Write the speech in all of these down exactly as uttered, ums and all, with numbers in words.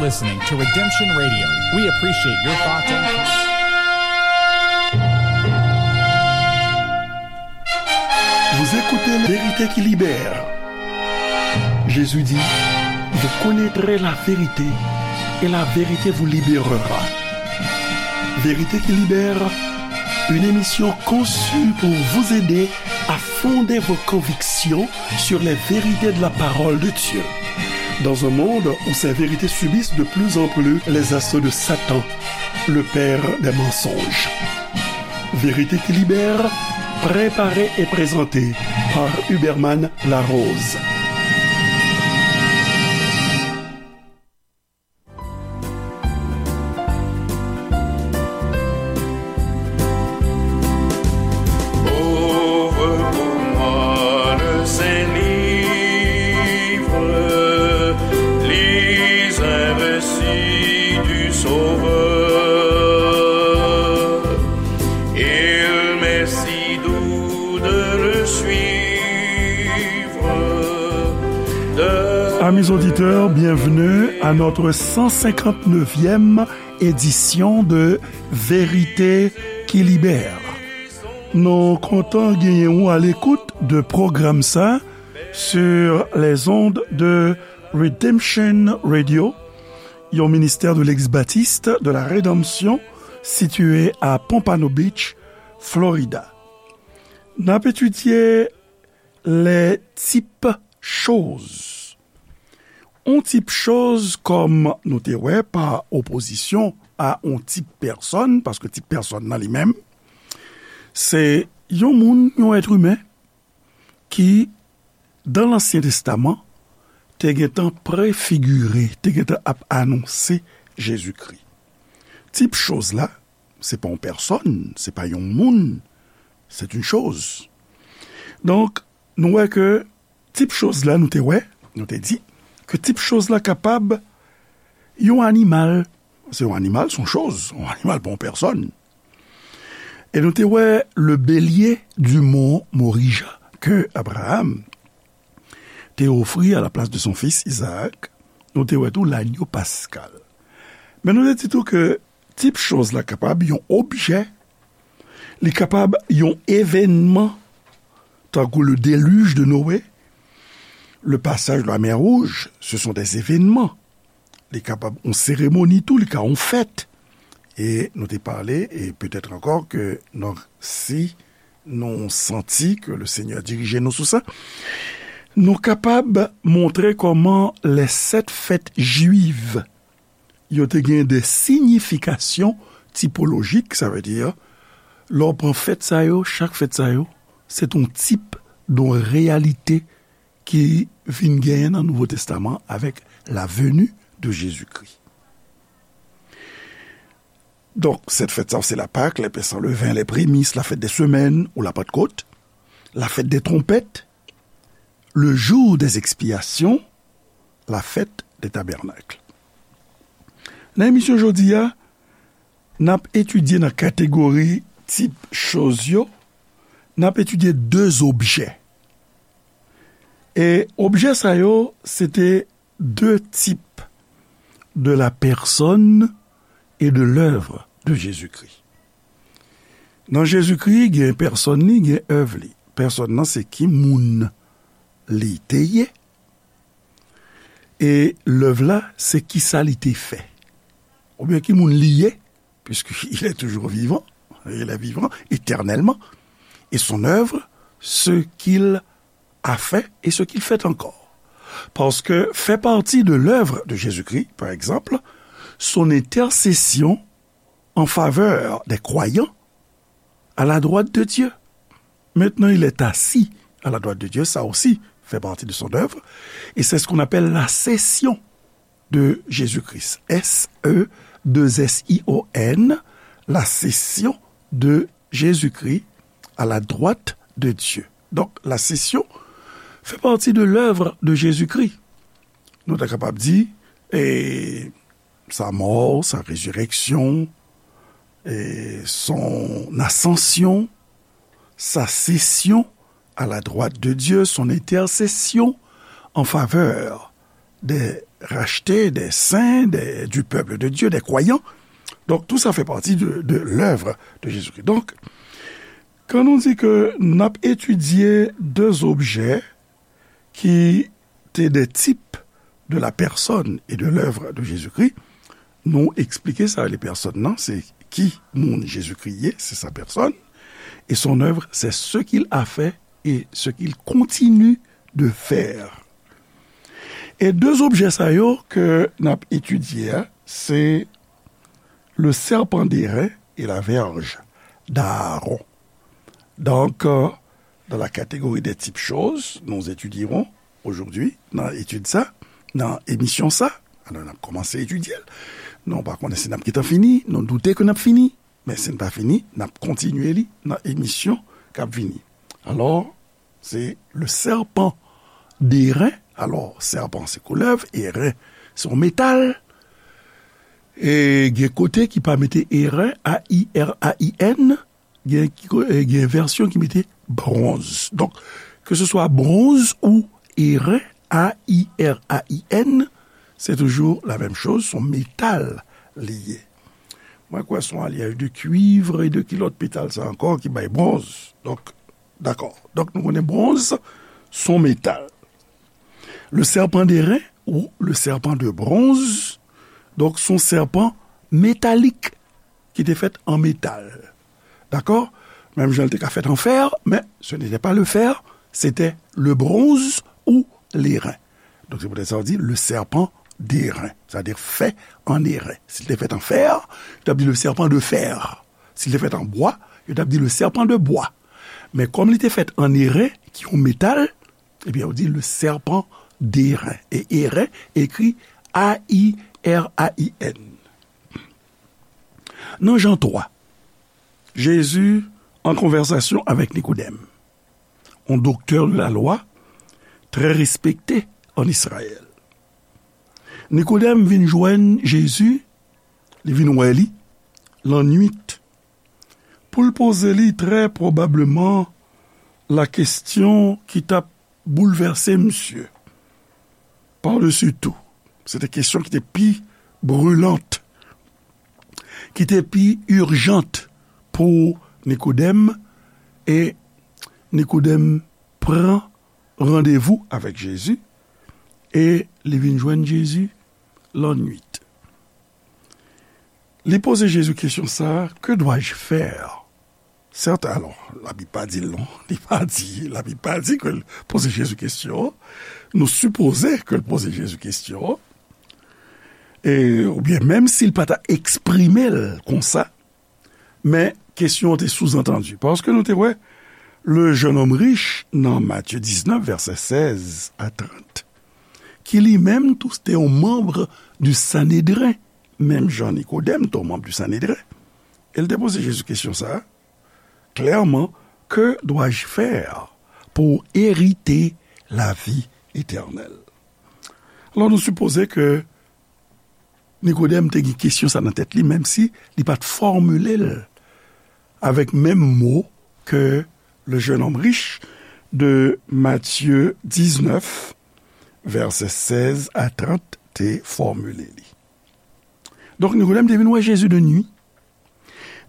Listening to Redemption Radio. We appreciate your thoughts and comments. Vous écoutez La Vérité qui libère. Jésus dit, vous connaîtrez la vérité et la vérité vous libérera. Vérité qui libère, une émission conçue pour vous aider à fonder vos convictions sur les vérités de la parole de Dieu. Dans un monde où ces vérités subissent de plus en plus les assauts de Satan, le père des mensonges. Vérité qui libère, préparée et présentée par Huberman Larose. Ouvre pour moi le Saint-Livre, lis un récit du Sauveur. Il m'est si doux de le suivre. De Amis auditeurs, bienvenue à notre cent cinquante-neuvième édition de Vérité qui libère. Nou kontan genyen ou à l'écoute de pwogram sa sur les ondes de Redemption Radio, yon ministère de l'ex-baptiste de la rédemption situé à Pompano Beach, Florida. N ap etidye les types choses. On tip choz, kòm nou te wè, pa opozisyon a on tip pèsòn, paske tip pèsòn nan li menm, se yon moun, yon èt imen ki, dan Lansyen Testaman, te gentan prefigire, te gentan ap anonse Jezikri. Tip choz la, se pa yon pèsòn, se pa yon moun, c'est une chose. Donk, nou wè ke tip choz la, nou te wè, nou te di, ke tip choz la kapab yon animal. Se yon animal, se yon choz, yon animal pa yon pèsòn. E nou te wè le bélier du mont Morija ke Abraham te ofri à la place de son fils Isaac. Nou te wè tou l'agneau pascal. Men nou te di tou ke tip choz la kapab yon objè, li kapab yon evènman, tankou le déluge de Noé, le passage de la mer Rouge, ce sont des événements. Li kapab yon seremoni tou, li ka yon fèt. E nou te pale, e petèt ankò ke nou, si nou santi ke le Senyè dirije nou sou sa, nou kapab montre kòman les sept fêtes juives, yo te gen de siyifikasyon tipolojik, sa vle di, lè w pran fèt sa yo, chak fèt sa yo, se t on tip de reyalite ki vin genyen nan Nouvo Testaman avèk la venue de Jésus-Christ. Donk, sèt fèt sa yo, se la Pâque, les pains sans levain, les prémices, la fête des semaines ou la Pentecôte, la fête des trompettes, le jour des expiations, la fête des tabernacles. Nan emisyon jodi a, n ap etidye nan kategori tip choz yo, n ap etidye de objè. E objè sa yo, se te de types de la personne et de l'œuvre de Jésus-Christ. Nan Jezikri, gen pèsòn li, gen èv li. Pèsòn nan se ki moun li te ye, e lèv la se kisa li te fè. Oubyen ki moun li ye, puisqu'il est toujours vivant, il est vivant éternellement, et son œuvre, ce qu'il a fait et ce qu'il fait encore. Parce que fait partie de l'œuvre de Jésus-Christ, par exemple, son intercession en faveur des croyants à la droite de Dieu. Maintenant, il est assis à la droite de Dieu, ça aussi fait partie de son œuvre, et c'est ce qu'on appelle la session de Jésus-Christ. S E deux S I O N, la session de Jésus-Christ à la droite de Dieu. Donc, la session fait partie de l'œuvre de Jésus-Christ. Nou ta kapab di, e, sa mò, sa rezirèksyon, e, son asansyon, sa sesyon à la droite de Dieu, son intercession en faveur des rachetés, des saints, des, du peuple de Dieu, des croyants. Donc, tout ça fait partie de, de l'œuvre de Jésus-Christ. Donc, quand on dit que n ap etidye de objè ki te de type de la personne et de l'œuvre de Jésus-Christ, nou eksplike sa, le pèsòn nan, se ki moun Jezikri ye, c'est sa personne, et son œuvre, c'est ce qu'il a fait et ce qu'il continue de faire. E de objè sa yo ke n ap etidye a, se le serpent d'airain et la verge d'Aaron. Donc, euh, dans la catégorie des types choses, nous étudierons aujourd'hui, nan etid sa, nan emisyon sa, alò n ap kòmanse etidye l. Nou pa konnen si n ap gentan fini, nou doute ke n ap fini, men si n pa fini, n ap kontinye li nan emisyon k ap vini. Alò, se le serpent d'airain. Alò, sèpan se koulèv, airain se yon metal. E gen kote ki pa mete airain, A I R A I N, gen, ki ko- e gen vèsyon ki mete bronz. Donk, ke se swa bronz ou airain, A I R A I N, se toujou la menm choz, se yon metal li ye. Mwen kwè se yon alyaj de cuivre e de ki lòt metal sa ankò ki bay bronz. Donk, dakò. Donk, nou konnen bronz se yon metal. Le serpent d'airain ou le serpent de bronze, donk, se yon sèpan metalik ki te fèt an metal. Dakò? Menm jan l te ka fèt an fè, men ce n'était pas le fer, c'était le bronze ou l'airain. Donk, se poutèt sa yo di le serpent d'airain, c'est-à-dire fait en airain. Si l te fèt an fè, yo t ap di le serpent de fer. Si l te fèt an bwa, yo t ap di le serpent de bois. Men kòm li te fèt an airain, ki yon metal, ebyen, yo di le serpent d'airain. E airain ekri A I R A I N. Nan Jan twa, Jezi an konvèsasyon avèk Nikodèm, yon doktè de la lwa trè respekte an Izrayèl. Nikodèm vin jwenn Jezi, li vin wè li lannwit, pou l poze li trè pwobableman la kesyon ki t ap boulvèse misye. Par-dessus tout, se te kesyon ki te pi brilant, ki te pi ijant pou Nikodèm, e Nikodèm pran randevou avèk Jezi, e li vin jwenn Jezi lannwit. Li poze Jezi kesyon sa a, que dois-je faire? Sèten, alò, Labib pa di l non. Li pa di, Labib pa di ke l poze Jezi kesyon an. Nou sipoze ke l poze Jezi kesyon an. E, oubyen menm si l pa ta eksprime l konsa, men kesyon an te souzantandi. Paske nou te wè, le jeune homme riche nan Matye diznèf, vèsè sèz a trant, ki li menm tou te yon manm du Sanedren, menm jan Nikodèm te yon manm du Sanedren. E l te poze Jezi kesyon sa a, klèman, que dois-je faire pour hériter la vie éternelle? Alò, nou sipoze ke Nikodèm te gen kesyon sa nan tèt li, menm si li pa t fòmile l avèk menm mo ke le jeune homme riche de Matye diznèf, vèsè sèz a trant, te fòmile li. Donk, Nikodèm te vin wè Jezi de nwi.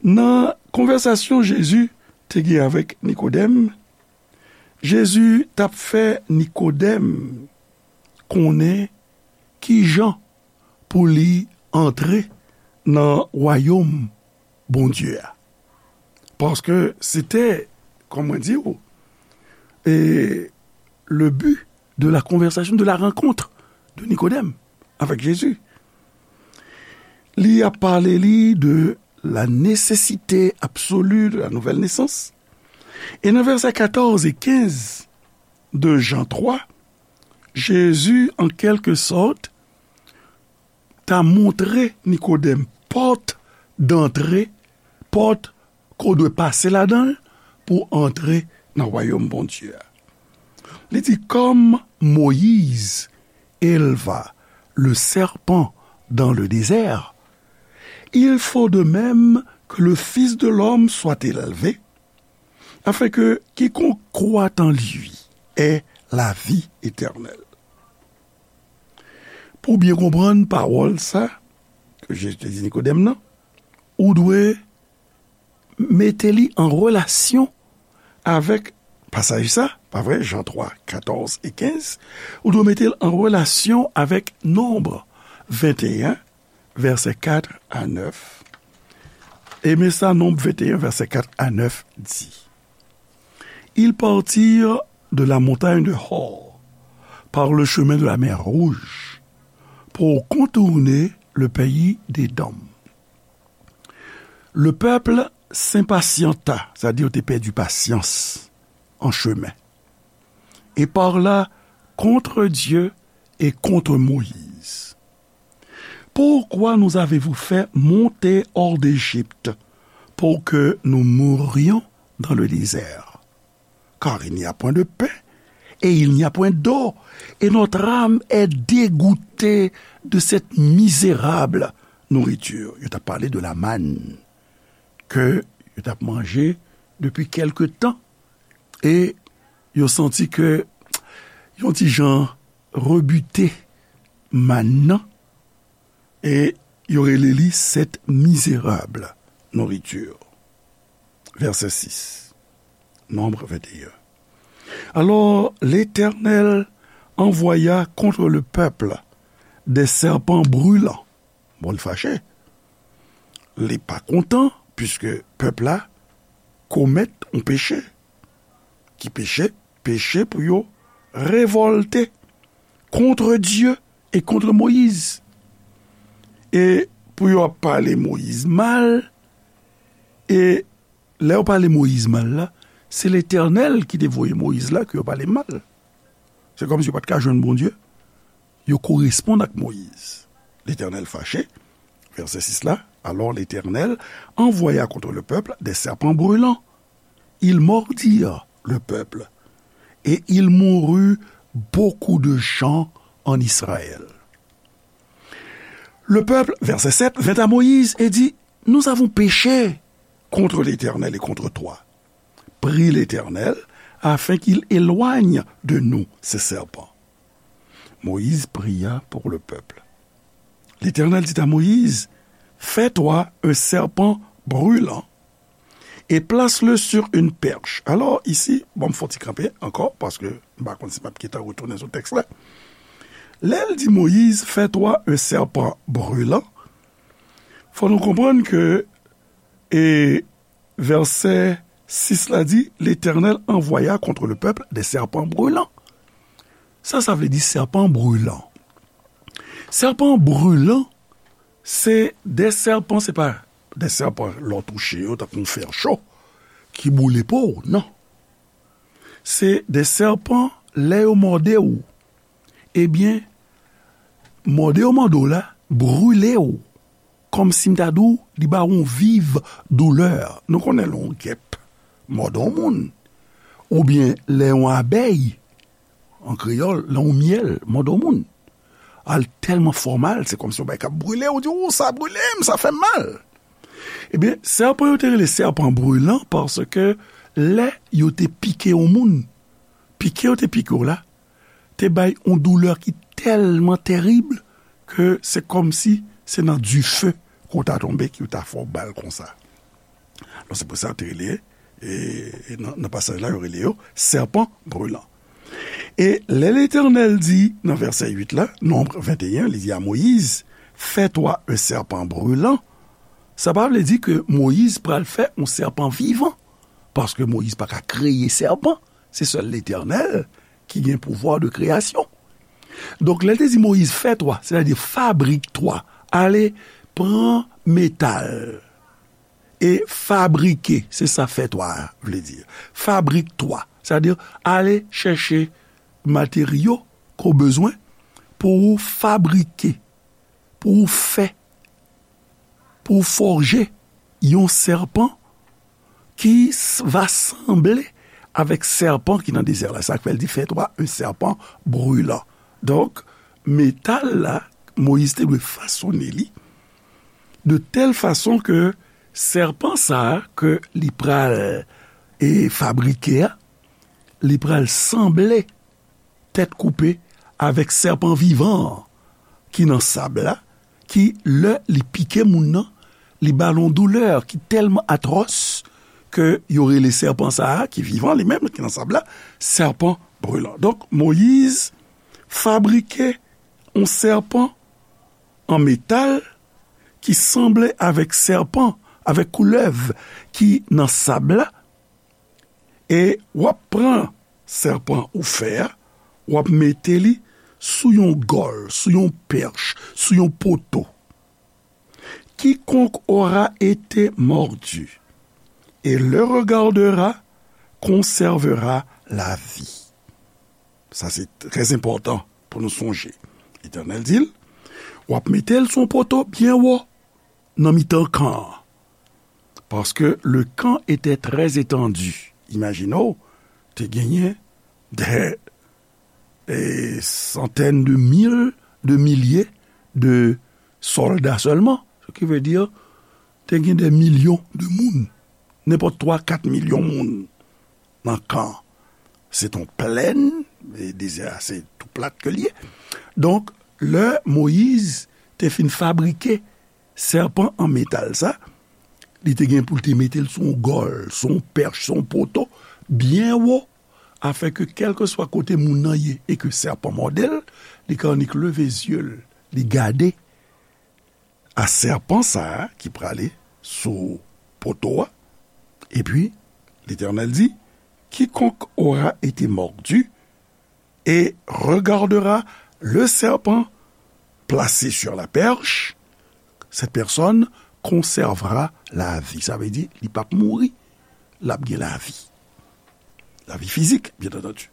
Nan konvèsasyon Jezi te gen avèk Nikodèm, Jezi t ap fè Nikodèm konnen kijan pou li antre nan wayòm Bondye a. Paske se te, kòman di w, e, le but de la conversation, de la rencontre de Nikodèm avec Jésus. Li ap pale li de la nécessité absolue de la nouvelle naissance. E nan vèsè katòz e kenz de Jan twa, Jezi, an kèlke sòt, ta montre Nikodèm pòt dantre, pòt ke w dwe pase ladan l pou antre nan wayòm Bondye a. Li di, comme Moïse éleva le serpent dans le désert, il faut de même que le Fils de l'homme soit élevé, afin que quiconque croit en lui ait la vie éternelle. ou byen konprann pawòl sa ke Jezi te di Nikodèm nan, ou dwe mete li an relasyon avèk pasaj sa, pa vre? Jan twa, katòz e kenz, ou dwe mete l an relasyon avèk Nonb venteyen, vèsè kat a nèf. E men sa Nonb venteyen, vèsè kat a nèf di. Ils partirent de la montagne de Hor par le chemin de la mer Rouge pour contourner le pays d'Édom. Le peuple s'impatienta, c'est-à-dire te pèdi pasyans an chemen, et parla contre Dieu et contre Moïse. Pourquoi nous avez-vous fait monter hors d'Égypte pour que nous mourions dans le désert? Car il n'y a point de pain et il n'y a point d'eau, et notre âme est dégoûtée de cette misérable nourriture. Yo t ap pale de la mann ke yo t ap manje depi kèlke tan. E yo santi ke yon ti jan rebute mann nan, e yo rele li cette misérable nourriture. Verset six. Nombre vingt et un. Alors l'Éternel envoya contre le peuple des serpents brûlants. Bon, li fache. Li pa kontan, puiske pèp la komèt yon peche. Ki peche? Peche pou yo revòlte contre Dieu et contre Moïse. E pou yo ap pale Moyiz mal, e lè yo pale Moyiz mal la, se Letènèl ki te voye Moyiz la ke yo pale mal. Se kòmsi yo pa t ka jwenn Bondye. Yo koresponn ak Moyiz. Letènèl fache. Vèsè sis la, alors l'Éternel envoya contre le peuple des serpents brûlants. Ils mordirent le peuple, et il mourut beaucoup de gens en Israël. Le peuple, verset sept, vint à Moïse et dit, nous avons péché contre l'Éternel et contre toi. Prie l'Éternel afin qu'il éloigne de nous ces serpents. Moïse pria pour le peuple. L'Éternel dit à Moïse, fais-toi un serpent brûlant et place-le sur une perche. Alors, ici, bon, m fè yon ti kanpe ankò, paske m pa konn si m ap gentan retounen sou tèks la. Lè l di Moyiz, fais-toi un serpent brûlant, fò nou konprann ke, e, vèsè sis la di, l'Éternel envoya contre le peuple des serpents brûlants. Sa, sa vle di sèpan brilan. Sèpan brilan, se de sèpan, se pa de sèpan lè w touche yo, tankou yon fè cho, ki boule po w, non. Se de sèpan, lè yo mòde w, ebyen, mòde yo mòde w la, brile w. Kòmsi m ta di w, li ba w yon viv doulè. Nou konnen lè yon gèp mòde yon moun, oubyen lè yon abèy, an kreyòl, lè yon myèl mòde yon moun, al tèlman fè w mal, se kòmsi yon bagay k ap brile w, ou di, ou, sa brile m, sa fè m mal. Ebyen, sèpan yo te rele sèpan brilan paske lè yo te pike yon moun, pike yo te pike w la, te bay yon doulè ki tèlman tèrib ke se kòmsi se nan dife ke w ta tonbe ki yo ta fè w bal konsa. Donk, se pou sa yo te rele, e, e nan, nan pasaj la, yo rele yo sèpan brilan. E lè Letènèl di nan vèsè uit la, Nonb venteyen, li di a Moyiz, fais-toi un serpent brûlant, sa pa vle di ke Moyiz pral fè yon sèpan vivan, paske Moyiz pa ka kreye sèpan, se sèl Letènèl ki gen pouvwa de kreyasyon. Donk, lè l te di Moyiz, fais-toi, sètadi fabrik twa, ale pran metal e fabrike, se sa fais-toi a vle di. Fabrik twa, sètadi ale chèche materyo ke w bezwen pou w fabrike, pou w fè, pou w fòje yon sèpan ki s-, va sanble avèk sèpan ki nan dezè la. Sa k fè l di, fais-toi un serpent brûlant. Donk, metal la, Moyiz te dwe fasone li de tèl fason ke sèpan sa a ke li pral, e, fabrike a, li pral sanble tèt koupe avèk sèpan vivan an. ki nan sab la, ki lè li pike moun nan, li ba l yon doulè ki tèlman atwòs ke yo rele sèpan sa a, ki vivan li menm, ki nan sab la, sèpan brilan. Donk, Moyiz fabrike yon sèpan an metal ki sanble avèk sèpan, avèk koulèv ki nan sab la, e w ap pran sèpan ou fè a, w ap mete li sou yon gòl, sou yon pèch, sou yon poto. Quiconque aura été mordu et le regardera conservera la vie. Sa se trè enpòtan pou nou sonje. Letènèl di l, w ap mete l sou yon poto byen wo nan mitan kan an. Paske le kan etè trè etandi. Imajine w, te genyen dè e, santèn de mil, de milye de sòlda sèlman. Sa ki vle di, te gen de milyon de moun. Nenpòt twa, kat milyon moun nan kan. Se t on plèn, e dezè a, se tou plat ke l ye. Donk, lè Moyiz te fin fabrike sèpan an metal sa, li te gen pou l te mete l sou yon gòl, sou yon pèch, sou yon poto, byen wo, afin ke kèlkeswa kote moun nan ye e ke sèpan mòde l, li ka annik leve zye l, li gade a sèpan sa a ki prale sou poto a. Epi, Letènèl di, quiconque aura été mordu et regardera le serpent placé sur la perche, cette personne conservera la vie. Sa vle di, li p ap mouri, l ap gen lavi. Lavi fizik, byen antandi.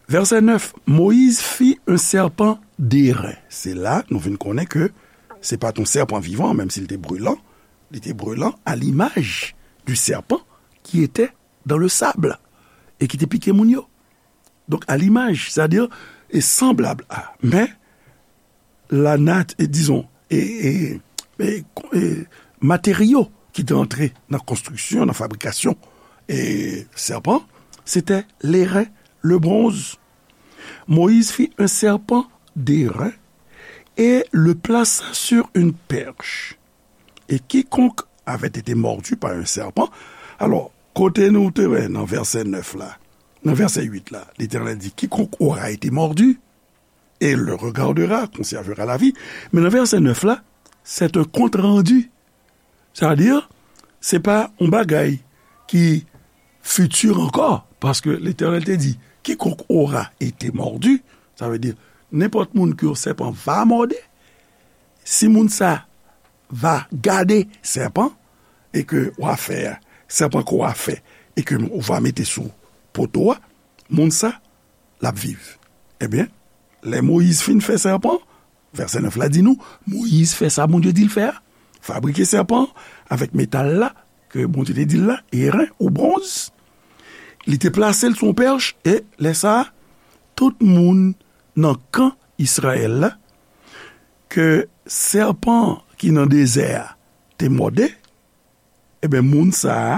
Vèsè nèf, Moïse fit un serpent d'airain. Se la, nou vin konnen ke se pa t yon sèpan vivan, menm si l te brilan, li te brilan à l'image du serpent qui était dans le sable et ki te pike moun yo. Donk, à l'image, c'est-à-dire, e sanblab a. Men, la nat-, e, dizon, e, e, e, e, materyo ki te antre nan konstriksyon, nan fabrikasyon, e, sèpan, se te leren, le bronz. Moïse fit un serpent d'airain et le plaça sur une perche. Et quiconque avait été mordu par un serpent. Alò, kote nou te wè nan vèsè nèf la, nan vèsè uit la, Letènèl di, quiconque aura été mordu et le regardera conservera la vie. Men nan vèsè nèf la, c'est un compte rendu. Sa vle di, se pa yon bagay ki fiti ankò, paske Letènèl te di, quiconque aura été mordu, sa vle di, nenpòt moun ke yon sèpan va mòde, si moun sa va gade sèpan, e ke w a fè, sèpan ke w a fè, e ke w a mete sou poto a, moun sa, l ap viv. Ebyen, lè Moyiz fin fè sèpan, vèsè nèf la di nou, Moyiz fè sa Bondye di l fè a, fabrike sèpan avèk metal la, ke Bondye te di l la, eren ou bwonz. Li te plase l sou yon pèch, e lè sa a, tout moun nan kan Izrayèl la, ke sèpan ki nan dezè a te mòde, ebyen, moun sa a,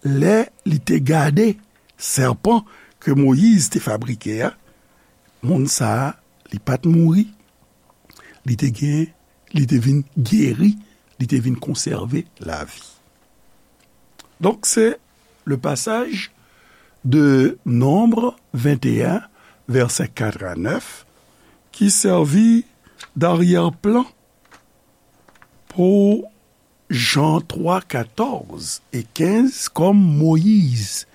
lè li te gade sèpan ke Moyiz te fabrike a, moun sa a, li pa t mouri, li te gen, li te vin geri, li te vin konsève lavi. Donk, se le passage de Nombre vingt et un, vèsè kat a nèf, ki sèvi d'aryè-plan pou Jean trois, quatorze et quinze, comme Moïse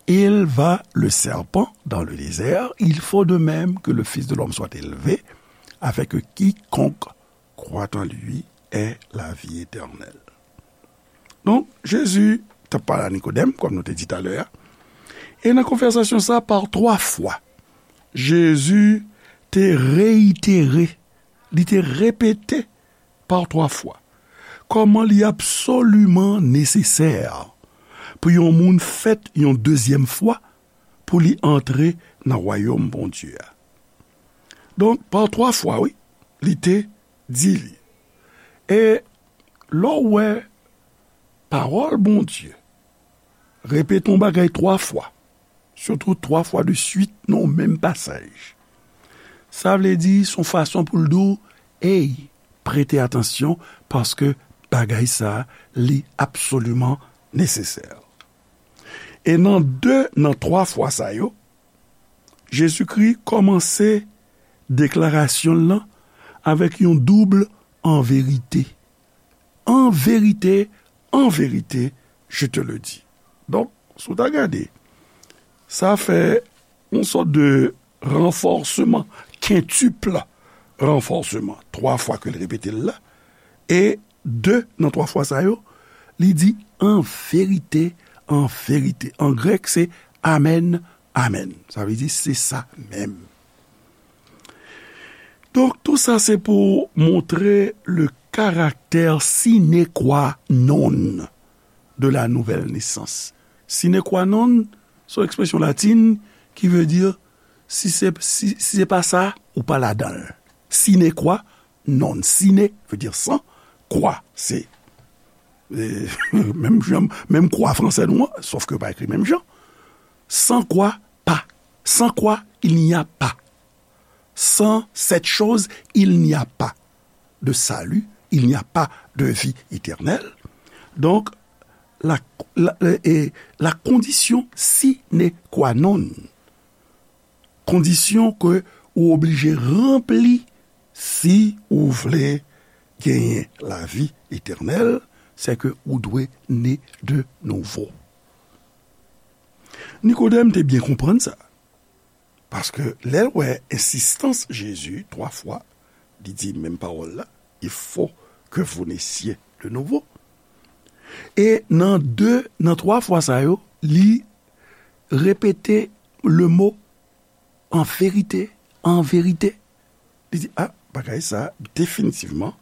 éleva le serpent dans le désert, il faut de même que le Fils de l'homme soit élevé, afin que quiconque croit en lui ait la vie éternelle. Donk, Jezi t ap pale a Nikodèm, kòm nou te di talè a, e nan konvèsasyon sa, pa twa fwa, Jezi te reyitere, li te repete pa twa fwa, kòman li absoliman nesesè pou yon moun fèt yon dezyèm fwa pou li antre nan wayòm Bondye a. Donk, pa twa fwa, wi, li te di li. E lè w wè pawòl Bondye repete yon bagay twa fwa, sitou twa fwa de swit nan yon menm pasaj, Sa vle di, se yon fason pou l di w, ey, prete atansyon, paske bagay sa a, li absoliman nesesè. E nan de nan twa fwa sa yo, Jezikri kòmanse deklarasyon l lan avèk yon doub an verite. En vérité, en vérité, je te le dis. Donk, si w ta gade, sa fè yon sòt de ranfòsman, kentupl ranfòsman, twa fwa ke l repete l la, e de nan twa fwa sa yo, li di, en vérité, en vérité. An grèk, se amen, amen. Sa vle di, se sa menm. Donk, tou sa se pou montre le caractère sine qua non de la nouvelle naissance. Sine qua non, se yon ekspresyon latin ki vle di, si se, si, si se pa sa, ou pa ladan l. Sine qua non. Sine vle di san, qua, se, e, menm jan, menm kwa fransè nou an, sòf ke yo pa ekri menm jan. Sans quoi, pas. Sans quoi, il n'y a pas. Sans cette chose, il n'y a pas de salut, il n'y a pas de vie éternelle. Donc, la, la, e, la condition sine qua non, kondisyon ke ou oblije ranpli si ou vle genyen lavi etènèl, se ke ou dwe ne de nouvo. Nikodèm te byen konprann sa. Paske lè l wè ensistans Jezi twa fwa, li di menm pawòl la, il faut que vous naissiez de nouveau. E nan de, nan twa fwa sa yo, li repete le mo en vérité, en vérité. Li di, a, bagay sa, definitivman,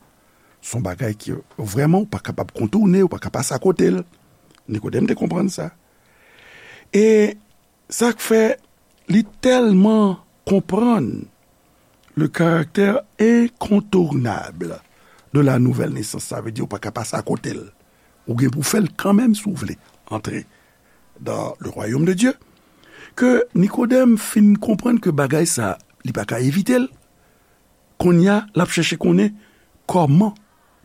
se yon bagay ki vrèman ou pa kapab kontoune, ou pa ka pase akote l. Nikodèm te konprann sa. E sa k fè li tèlman konprann le caractère incontournable de la nouvelle naissance, sa vle di ou pa ka pase akote l. Ou gen pou fè l kanmenm si w vle antre dans le royaume de Dieu. Ke Nikodèm fin konprann ke bagay sa, li pa ka evite l. Kounye a, l ap chèche konnen kòman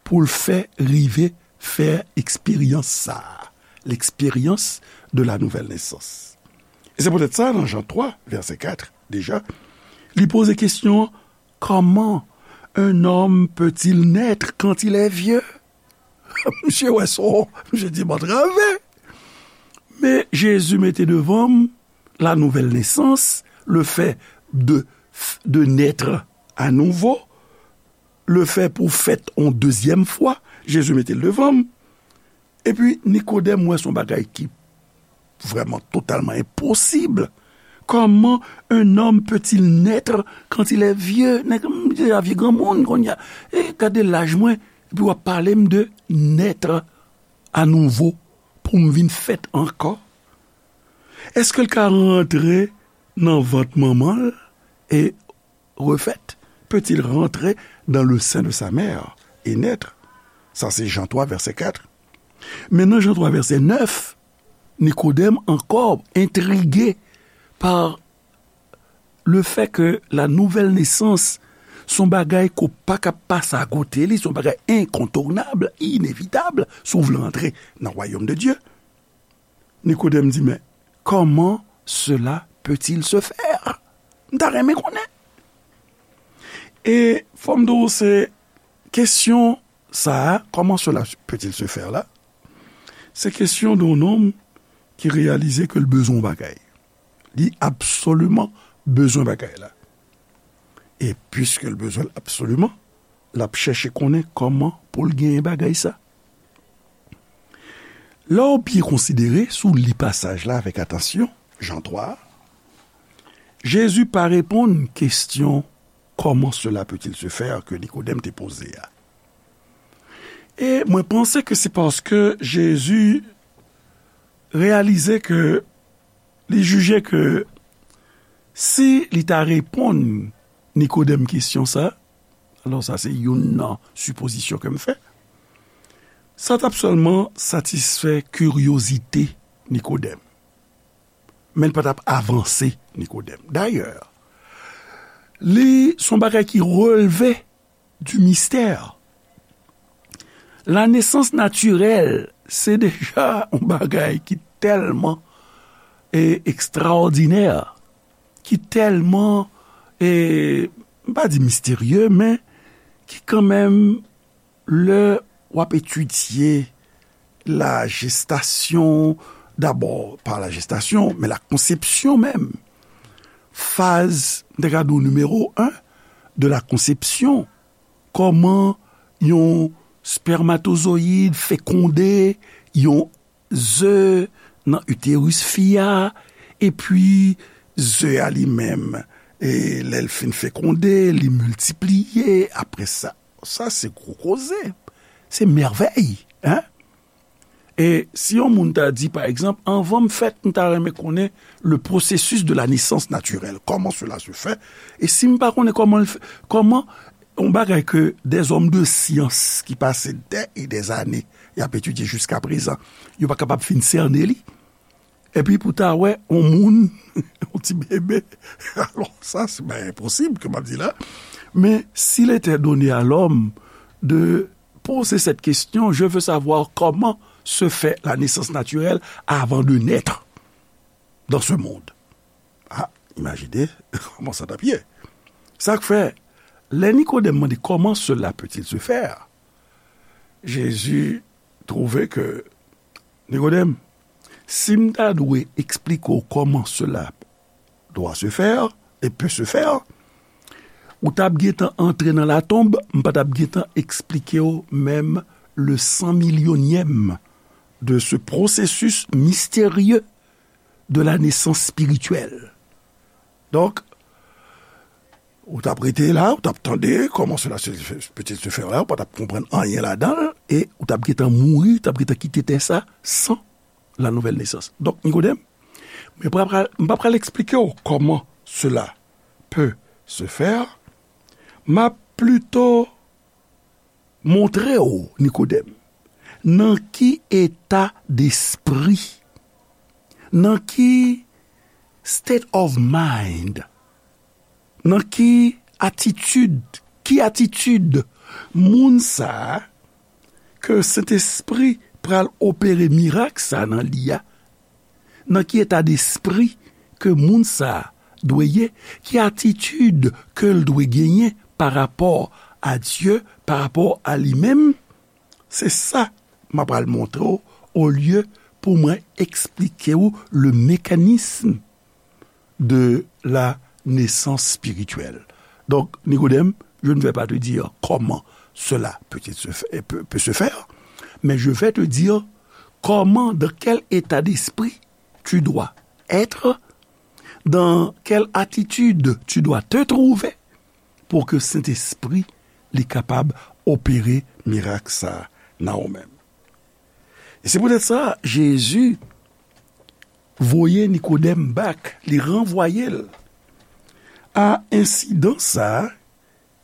pou l fè rive fè eksperyans sa a, l'expérience de la nouvelle naissance. E se poutèt sa, nan Jan twa, vèsè kat, deja, li poze kesyon an, comment un homme peut-il naître quand il est vieux? Misye wè sa, misye di, m antrave. Men Jezi mete devan m la nouvelle naissance, le fait de, de naître à nouveau, le fait pou fèt on dezyèm fwa, Jezi mete l devan m. Epi Nikodèm wè se yon bagay ki vrèman totalman enposib. Comment un homme peut-il naître quand il est vieux? Nèg m deja vye granmoun kounye a. E gade laj mwen, epi w ap pale m de naître à nouveau, pou m vin fèt ankò? Èske l ka rantre nan vant manman l e refèt? Peut-il rentrer dans le sein de sa mère et naître? Sa se Jan twa, vèsè kat. Men nan Jan twa, vèsè nèf, Nikodèm ankò entrige pa le fait que la nouvelle naissance se yon bagay ke w pa ka pase akote li, se yon bagay incontournable, inévitable, si w vle antre nan wayòm de Dye. Nikodèm di, men, comment cela peut-il se faire? M ta renmen konnen. E fò m di w, se kesyon sa a, comment cela peut-il se faire la, se kesyon de yon nonm ki reyalize ke l bezwen yon bagay. Li absoliman bezwen bagay la. E piske l bezwen l absoliman, l ap chèche konnen kòman pou l genyen bagay sa. Lè w byen konsidere, si w li pasaj la avèk atansyon, Jan twa a, Jezi pa reponn kesyon comment cela peut-il se faire ke Nikodèm te poze a. E mwen panse ke se paske Jezi reyalize ke, li jije ke si li ta reponn Nikodèm kesyon sa, alò sa se youn nan sipozisyon ke m fè, sa t ap sèlman satisfè kiryozite Nikodèm. Men l pa t ap avanse Nikodèm. Dayè, Li se yon bagay ki relve du mystère. La nesans natirèl, se deja yon bagay ki tèlman e, ekstraòdinè, ki tèlman, e, m pa di misterye, men ki kanmenm, lè w ap etidye la gestation, d'abord par la gestation, mais la conception même. Faz, m te ka di w, nimewo en de la conception. Kòman yon spèmatozoyid fekonde yon ze nan iteris fi a, epi ze a li menm, e lè l fin fekonde, li miltipliye, apre sa. Sa se gwo koze. Se mèvèy, en? E si yon moun ta di, pa egzanp, anvan m fèt, m ta renmen konnen le processus de la naissance naturelle, comment cela se fait, e si m pa konnen kòman l fè, kòman yon bagay ke des hommes de science ki pase des et des années y ap etidye jiska prezan, yo pa kapab fin sène li, epi pou ta wè yon moun, yon ti bebe, alò sa se pa enposib ke m ap di la, men s'il était donné à l'homme de poser cette question, je veux savoir comment se fait la naissance naturelle avant de naître dans ce monde. Ah, imajine kòman sa t ap ye. Sa k fè, lè Nikodèm mande comment cela peut-il se faire, Jésus trouve que, Nikodèm, si m ta dwe eksplike w comment cela doit se faire et peut se faire, ou t ap gentan antre nan latonb, m pa t ap gentan eksplike w menm le cent millionième de ce processus mystérieux de la naissance spirituelle. Donk, ou t ap rete la, ou t ap tande comment cela se, peut-il se faire la, ou pa t ap konprann anyen ladan l, e ou t ap gentan mouri, ou t ap gentan kite tè sa san la nouvelle naissance. Donk, Nikodèm, mwen pa pral, m pa pral eksplike w comment cela peut se faire, m ap plito montre w, Nikodèm, nan ki eta despri, nan ki state of mind, nan ki atitid, ki atitid moun sa a ke Sentespri pral opere mirak sa a nan li a, nan ki eta despri ke moun sa a dwe ye, ki atitid ke l dwe genyen pa rapò a Dye, pa rapò a li menm, se sa m ap pral montre w, olye pou mwen eksplike w le mécanisme de la naissance spirituelle. Donc, Nicodème, je ne vais pas te dire comment cela peut, se fa-, peut, peut se faire, mais je vais te dire comment, dans quel état d'esprit tu dois être, dans quelle attitude tu dois te trouver pour que Saint-Esprit li kapab opere mirak sa nan ou menm. E se poutèt sa, Jezi voye Nikodèm back, li ranvwaye l a ensidan sa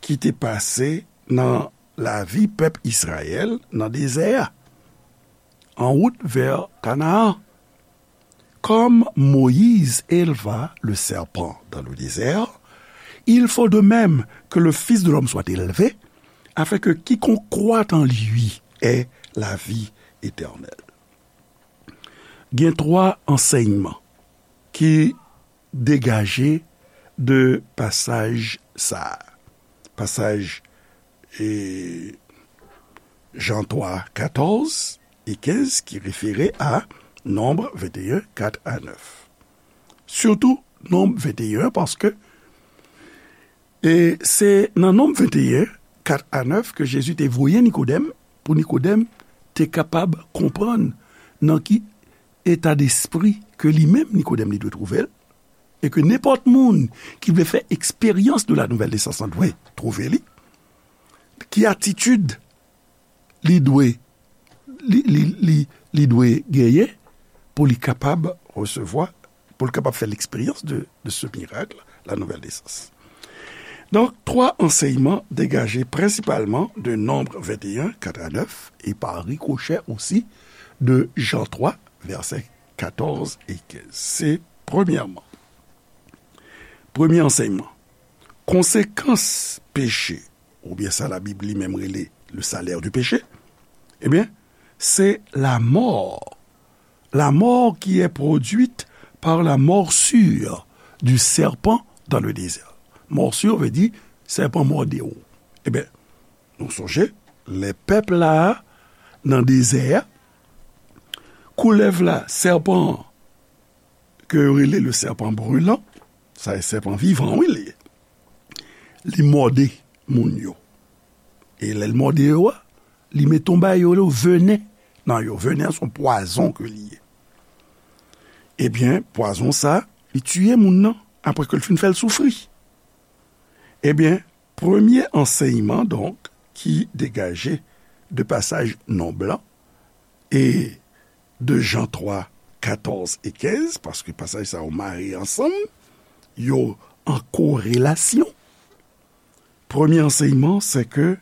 ki te pase nan lavi pèp Izrayèl nan dezè a, en route vers Canaan. Comme Moïse éleva le serpent dans le désert, il faut de même que le Fils de l'homme soit élevé, afin que quiconque croit en lui ait la vie éternelle. Gen twa ansèyman ki degaje de pasaj sa a. Pasaj, e, Jan twa, katòz e kenz ki refere a Nonb venteyen, kat a nèf. Sitou Nonb venteyen, paske, e, se nan Nonb venteyen, kat a nèf ke Jezi te voye Nikodèm, pou Nikodèm te kapab konprann nan ki eta despri ke li menm, Nikodèm, li dwe twouve l, e ke nenpòt moun ki vle fè eksperyans de la nouvelle naissance lan dwe twouve li, ki atitid li dwe, li, li, li, li dwe genyen pou li kapab resevwa, pou li kapab fè l'expérience de, de ce miracle, la nouvelle naissance. Donk, twa ansèyman degaje prensipalman de Nonb venteyen, kat a nèf, e pa rikochè osi de Jan twa, vèsè katòz e kenz. Se premyèman. Premye ansèyman. konsekans peche, oubyen sa Labib li menm rele le salaire du péché, ebyen, se la mort. La mort qui est produite par la morsure du serpent dans le désert. Morsure vle di sèpan mòde w. Ebyen, nou sonje, lè pèp la nan dezè a, koulèv la, sèpan an, ke yo rele le serpent brûlant, sa e sèpan vivan, wi, li ye. Li mòde moun yo. E lè l mòde yo a, li mete yon bagay yo rele venen nan yo. Venen an se yon pwazon ke li ye. Ebyen, pwazon sa, li tiye moun nan apre ke l fin fè l soufri. Ebyen, premye ansèyman, donk, ki degaje de pasaj non blan e de Jan twa, katòz e kenz, paske pasaj sa yo mare ansanm, yo an korelasyon. Premye ansèyman, se ke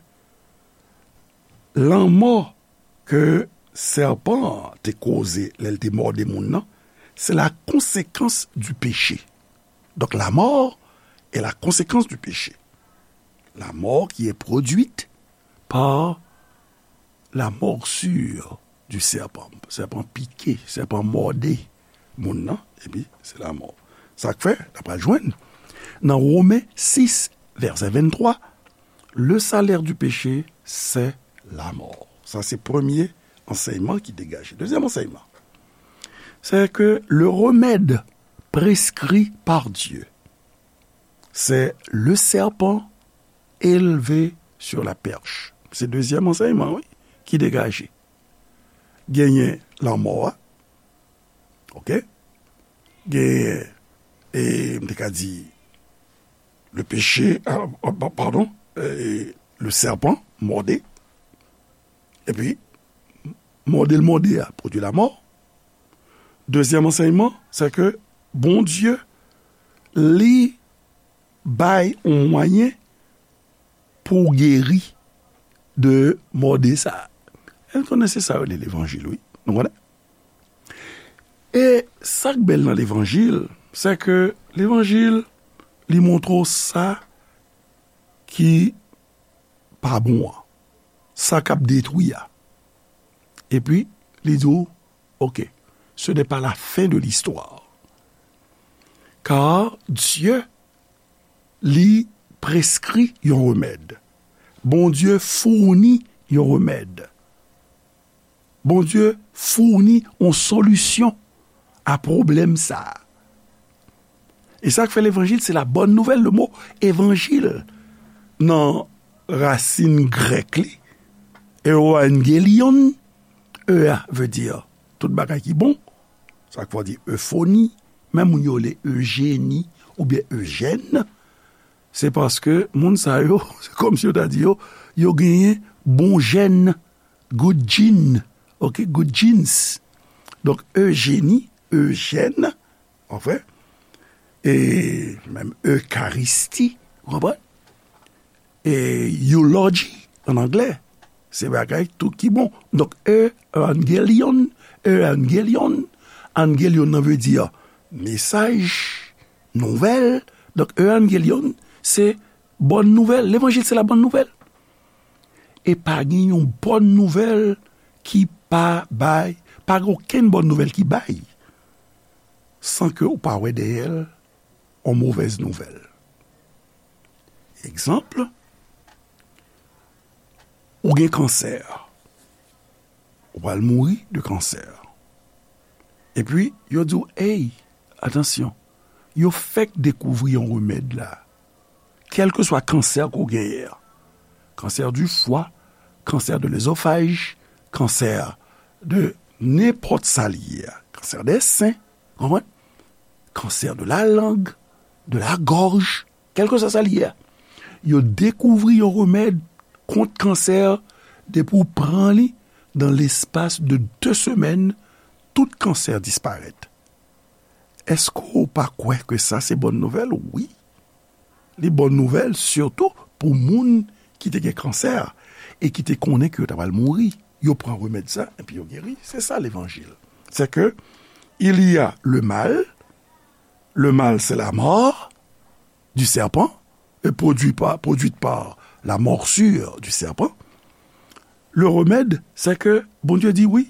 lanmò ke sèpan an te koze lè l te mòde moun nan, se la conséquence du péché. Donc la mort est la conséquence du péché. La mort qui est produite par la morsure du serpent. Sèpan pike, sèpan mòde moun nan, epi se lanmò. Sa k fè, n ap pral jwenn nan Women sis, vèsè venntwa, le salaire du péché, c'est la mort. Sa se premye ansèyman ki degaje. Dezyèm ansèyman, c'est que le remède prescrit par Dieu, c'est le serpent élevé sur la perche. Se dezyèm ansèyman, wi, ki degaje. Genyen lanmò a, oke? Genyen, e, m te ka di, le péché, ah, ah, pa- padon, e, le serpent mòde. Epi, mòde l mòde a, pwodui lamò. Dezyèm ansèyman, se ke Bondye, li bay yon mwayen pou w geri de mòde sa a. E nou konnen se sa yo rele levanjil, wi. Nou konnen? E sa k bèl nan levanjil, se ke levanjil, li montre w sa ki pa bon an, sa k ap detwi a. Epi, li di w, oke, ce n'est pas la fin de l'histoire. Car Dieu li preskri yon remèd. Bondye founi yon remèd. Bondye founi yon solisyon a pwoblèm sa a. E sa k fè levanjil, se la bòn nouvèl. Le mo evanjil, nan rasin grèk li, euangelion, e a vle di tout bagay ki bon. Sa k fè w di euphony, menm moun yo rele Eugénie oubyen Eugène, se paske moun sa yo, se kòmsi yo ta di yo, yo genyen bon jèn, good gene, oke, good genes. Donk, Eugénie, Eugène, anfen, e menm Ekaristi, ou konprann? E eulogy, an anglè, se bagay tout ki bon. Donk, euangelion, euangelion, angelion nan vle di mesaj, nouvèl. Donk, euangelion, se bòn nouvèl. Levanjil, se la bòn nouvèl. E pa gen yon bòn nouvèl ki pa bay, pa gen okenn bòn nouvèl ki bay, san ke ou pa wè dèyè l yon movèz nouvèl. Egzanp, ou gen kansè. Ou pral mouri de kansè. Epi, yo di w, ey, atansyon, yo fèk dekouvri yon remèd la. Kèlkeswa kansè ke w genyen an, cancer du foie, cancer de l'œsophage, kansè de nenpòt sa li ye a, cancer des seins, konprann? Cancer de la langue, de la gorge, kèlkeswa sa li ye a. Yo dekouvri yon remèd kont kansè, depi w pran li, dans l'espace de deux semaines, tout kansè disparèt. Èske w pa kwè ke sa se bòn nouvèl? Wi. Li bòn nouvèl, sitou pou moun ki te gen kansè e ki te konnen ke yo ta pral mouri. Yo pran remèd sa, epi yo geri. Se sa levanjil. C'est que il y a le mal, le mal, c'est la mort du serpent, produit par, produite par la morsure du serpent, le remèd, c'est que Bondye di wi,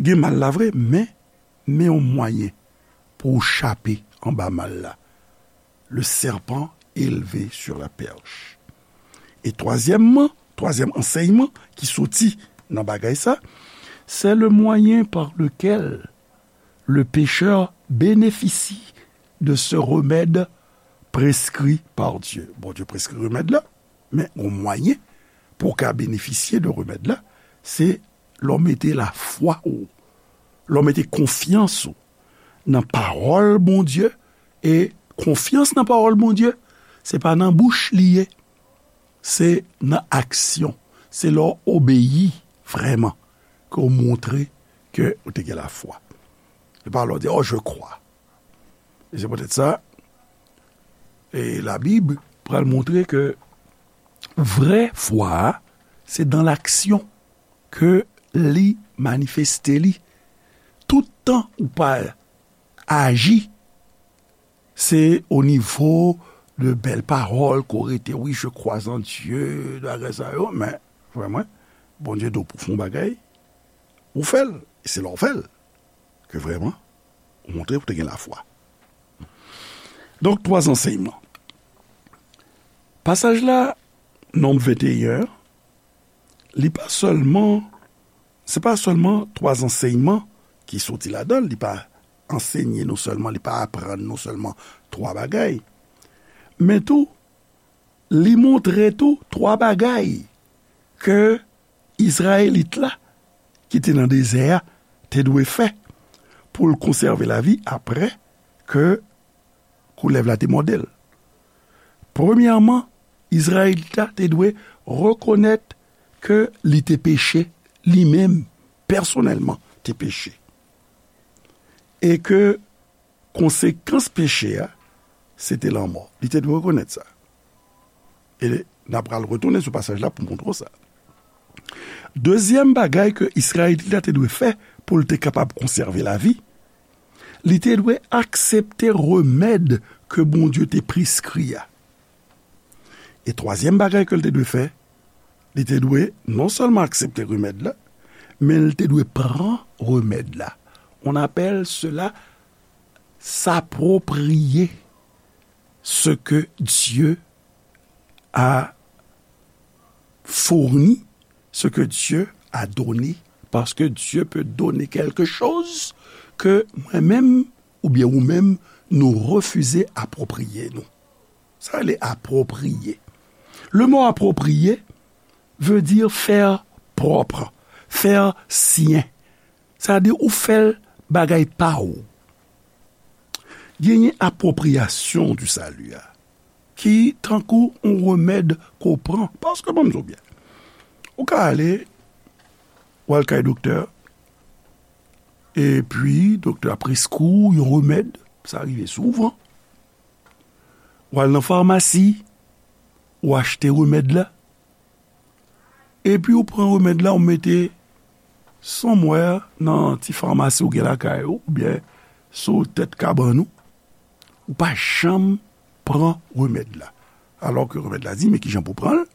gen mal la vre, men, men yon mwayen pou w chape anba mal la. Le serpent élevé sur la perche. E twazyèmman, twazyèm ansèyman ki soti nan bagay sa, c'est le moyen par lequel le pécheur bénéficie de ce remède prescrit par Dieu. Bondye preskri remèd la, men yon mwayen pou w ka benefisye de remèd la, se lè w mete lafwa ou, lè w mete konfyans ou nan pawòl Bondye, e konfyans nan pawòl Bondye, se pa nan bouch li ye, se nan aksyon, se lè w obeyi vrèman, ke w montre ke w te gen lafwa. Se pa lè w di, oh, je crois. E se poutèt sa, e Labib pral montre ke vrè fwa a, se dans l'action ke li manifeste li. Tout tan ou pa aji, se o nivo de bèl pawòl ke w rete, wi, je crois en Dieu, bagay sa yo, men, frè mwen, Bondye di w pou w fè yon bagay, ou fè l. E se lè w fè l ke vrèman, ou montre ou te gen lafwa. Donk, twa ansèyman. Pasaj la, Nonb venteyen, li pa sèlman, se pa sèlman twa ansèyman ki soti ladan l, li pa ansenye nou sèlman, li pa aprann nou sèlman twa bagay, men tou, li montre tou twa bagay ke Izrayelit la ki te nan dezè a te dwe fè pou l konsève lavi apre ke koulèv la te mòde l. Premyèman, Izrayelit la te dwe rekonèt ke li te peche, li menm, pèsonèlman, te peche. E ke konsekans peche a, se te lanmò. Li te dwe rekonèt sa. E n ap pral retounen sou pasaj la pou montre w sa. Dezyèm bagay ke Izrayelit la te dwe fè pou l te kapab konsève lavi, li te dwe aksepte remèd ke Bondye te preskri a. E twazyèm bagay ke l te dwe fè, li te dwe non sèlman aksepte remèd la, men l te dwe pran remèd la. On appelle cela s'approprier ce que Dieu a fourni, ce que Dieu a donné, parce que Dieu peut donner quelque chose que mwen menm oubyen ou menm nou refize apwopriye nou. Sa rele apwopriye. Le mot approprier veut dire faire propre, faire sien. Sa vle di ou fè l bagay pa ou. Genyen apwopriyasyon di sali a, ki tankou yon remèd ke w pran. Paske, ban m di w byen, ou ka ale, w al kay doktè, epi doktè a preskri w yon remèd, sa rive souvan. W al nan famasi, ou achte remèd la, epi ou pran remèd la, ou mete somewhere nan ti famasi ou gen lakay ou, oubyen sou tèt kabann ou, ou pa janm pran remèd la. Alò ke remèd la di, men kijan pou pran l,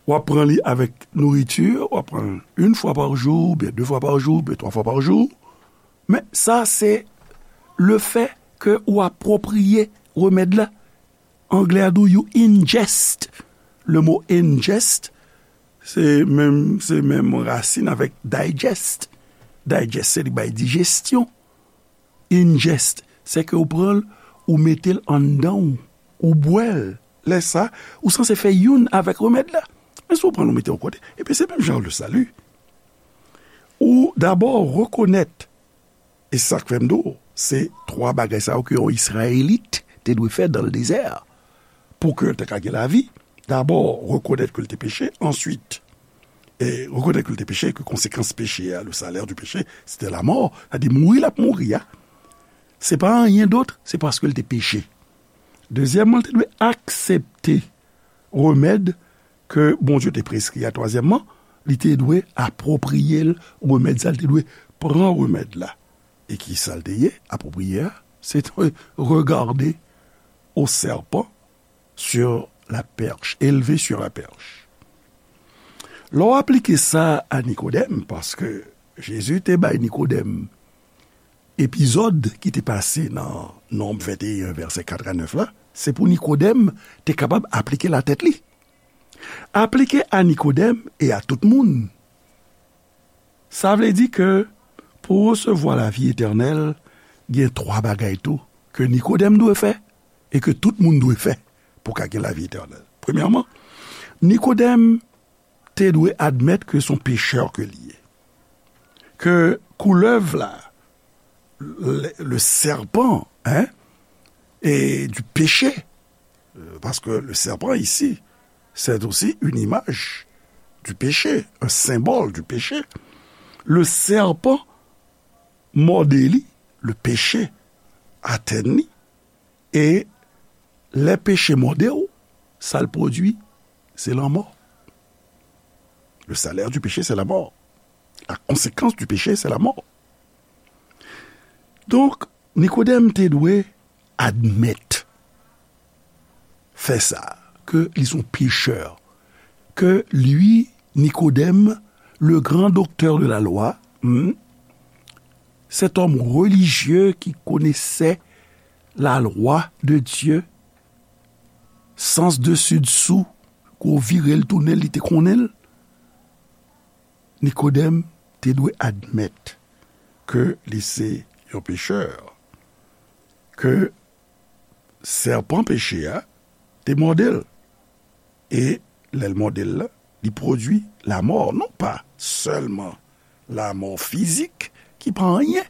w ap pran li avèk nouriti, w ap pran l yon fwa pa jou, oubyen de fwa pa jou, oubyen twa fwa pa jou. Men sa se le fè ke ou apwopriye remèd la. Anglè a di w you ingest. Le mot ingest, se menm, se menm rasin avèk digest. Digest, se li bay dijesyon. Ingest, se ke ou pran l, ou mete l anndan w, ou bwè l. Lè sa, ou sanse fè youn avèk remèd la. Men si w pran l, ou mete yon kote, epi se menm jan le sali. Ou dabò rekonèt E sa k fè m di w, se twa bagay sa yo ke yon Izrayelit te dwe fè dans le désert. Pou ke l te ka gen lavi, dabò, rekonèt ke l te peche, answit, e rekonèt ke l te peche, ke konsekans peche a, le salaire du péché, c'était la mort, sa di mouri l ap mouri a, se pa anyen dòt, se paske l te peche. Dezyèmman, l te dwe aksepte remèd ke Bondye te preskri a. Twazyèmman, li te dwe apwopriye l remèd sa, li te dwe pran remèd la. E ki sa l te ye? Apwopriye a, se te regarder au serpent sur la perche, élevé sur la perche. Lè w aplike sa a Nikodèm, paske Jezi te bay Nikodèm epizòd ki te pase nan Nonb venteyen, vèsè kat a nèf la, se pou Nikodèm te kapab aplike l a tèt li. Aplike a Nikodèm e a tout moun. Sa vle di ke pou resevwa lavi etènèl, gen twa bagay tou ke Nikodèm dwe fè e ke tout moun dwe fè pou ka gen lavi etènèl. Premyèman, Nikodèm te dwe admèt ke se yon pechè ke li ye. Ke koulèv la, le, le serpent, hein, et du péché, euh, parce que le serpent ici, c'est aussi une image du péché, un symbole du péché. Le serpent mòde li, le péché atenn li, e lè peche mòde w, sa l pwodui, se lanmò. Le salaire du péché, c'est la mort. La conséquence du péché, c'est la mort. Donk, Nikodèm te dwe admèt fè sa, ke li se yon pechè, ke li, Nikodèm, le grand docteur de la loi, hmm, cet homme religieux qui connaissait la loi de Dieu, sans dessus dessous, kou vire l tounen, li te konnen l. Nikodèm te dwe admèt ke li se yon pechè, ke sèpan peche a te mòde l. E lè l mòde l la, li pwodui lamò. Non pa sèlman lamò fizik, ki pa anyen,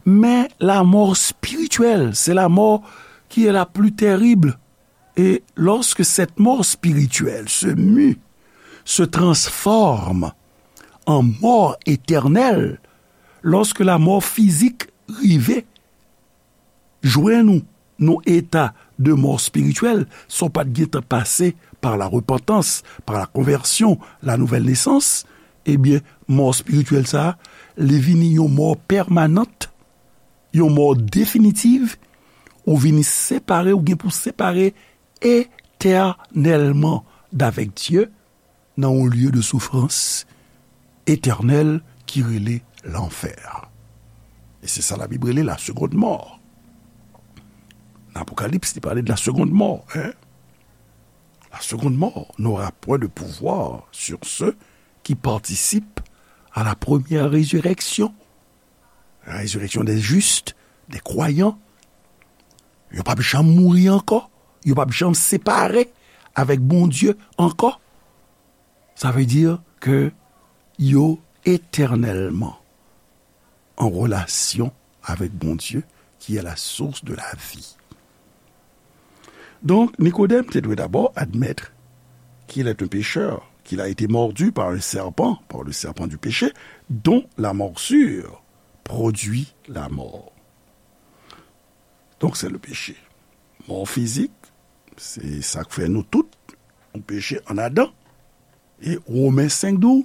men lamò espirityèl. C'est la mort qui est la plus terrible. Et lorsque cette mort spirituelle se mue, se transforme en mort éternelle, lorsque la mort physique rive jwenn ou nan eta de mò espirityèl, san w pa t gentan pase pa la repantans, pa la konvèsyon, la nouvèl nesans, ebyen, mò espirityèl sa a, li vini yon mò pèmanant, yon mò definitiv, ou vini separe, ou gen pou separe etènèlman davèk Dye, nan yon lye de soufrans etènèl ki rele lanfè. E se sa Labib rele la seconde mort. Nan Apokalips, li pale de la seconde mort, hein? La seconde mort n'aura point de pouvoir sur ceux qui participent à la première résurrection. La résurrection des justes, des croyants. Yo p ap janm mouri ankò. Yo p ap janm separe avèk Bondye ankò. Sa vle di ke yo etènèlman an relasyon avèk Bondye, qui est la source de la vie. Donc, Nikodèm te dwe dabò admèt qu'il est un pécheur, qu'il a été mordu par un serpent, par le serpent du péché, dont la morsure produit la mort. Donc, c'est le péché. Mò fizik, se sa k fè nou tout, nou peche ann Adan. E Women senk di w,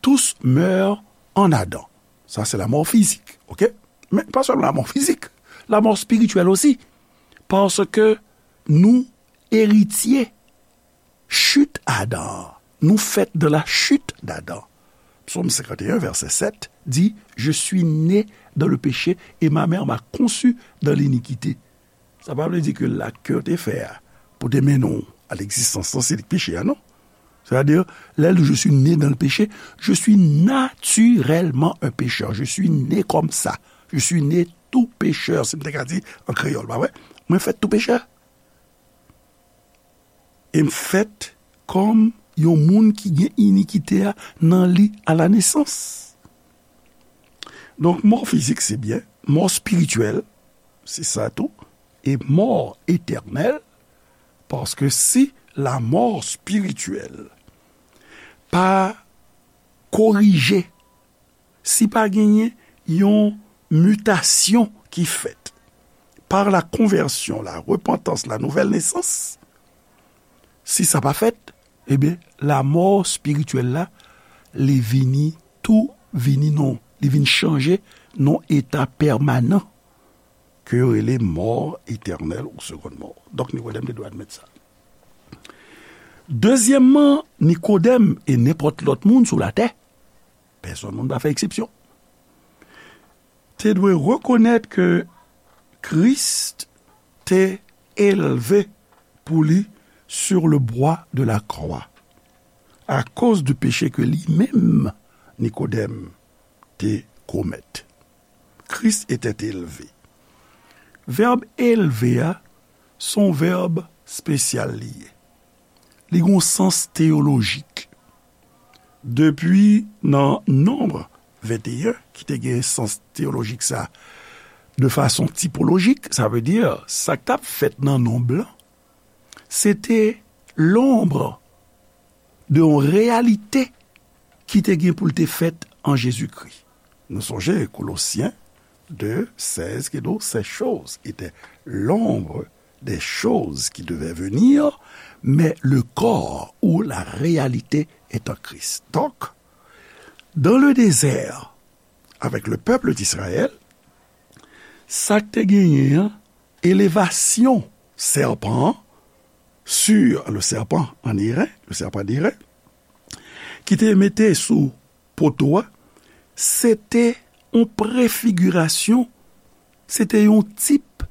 tous meurent en Adam. Sa se lamò fizik, oke? Men pa sèlman lamò fizik, lamò espirityèl osi. Paske nou eritye chit Adan an. Nou fèt de la chute d'Adam. Psaume cinquante et un, verset sept dit, je suis né dans le péché et ma mère m'a conçu dans l'iniquité. Sa pa vle di ke lak ke w te fè a pou te mennen w a legzistans lan, se li k peche a, non. Sètadi, lè l di, je suis né dans le péché, je suis naturellement un pécheur. Je suis né comme ça. Je suis né tout pécheur, si m te ka di an kreyòl, pa vre? Mwen fèt tou pechè. E m fèt kòm yon moun ki gen inikite a nan li a la nesans. Donk, mò fizik, se byen. Mò espirityèl, se sa tou. E mò etènèl, paske si lamò espirityèl pa korije, si pa genyen yon mitasyon ki fèt par la konvèsyon, la repantans, la nouvèl nesans, si sa pa fèt, ebyen, lamò espirityèl la, li vini tou, vini non, li vin chanje nan eta pèmanan. ke yo rele mò etènèl ou seconde mort. Donk, Nikodèm te dwe admèt sa. Dezyèmman, Nikodèm e nenpòt lòt moun sou latè, pèsonn moun pa fè eksepsyon, te dwe rekonèt ke Kris te elve pou li sur le bois de la croix, akoz de peche ke li menm, Nikodèm, te komèt. Kris était élevé. Vèb elve a, se yon vèb espesyal li ye. Li gen yon sans teyolojik. Depi nan Nonb venteyen, ki te gen sans teyolojik sa, de fason tipolojik, sa vle di, sa k t ap fèt nan nonb lan, se te lonb de yon reyalite ki te gen pou l te fèt an Jezikri. Nou sonje Kolosyen de sèz ki di, ces choses étaient l'ombre des choses qui devaient venir, mais le corps ou la réalité est en Christ. Donk, dans le désert, avec le peuple d'Israël, sa k te genyen an, elevasyon sèpan an, sur le serpent en airain, le serpent d'airain, ki te mete sou poto a, se te yon prefigirasyon, se te yon tip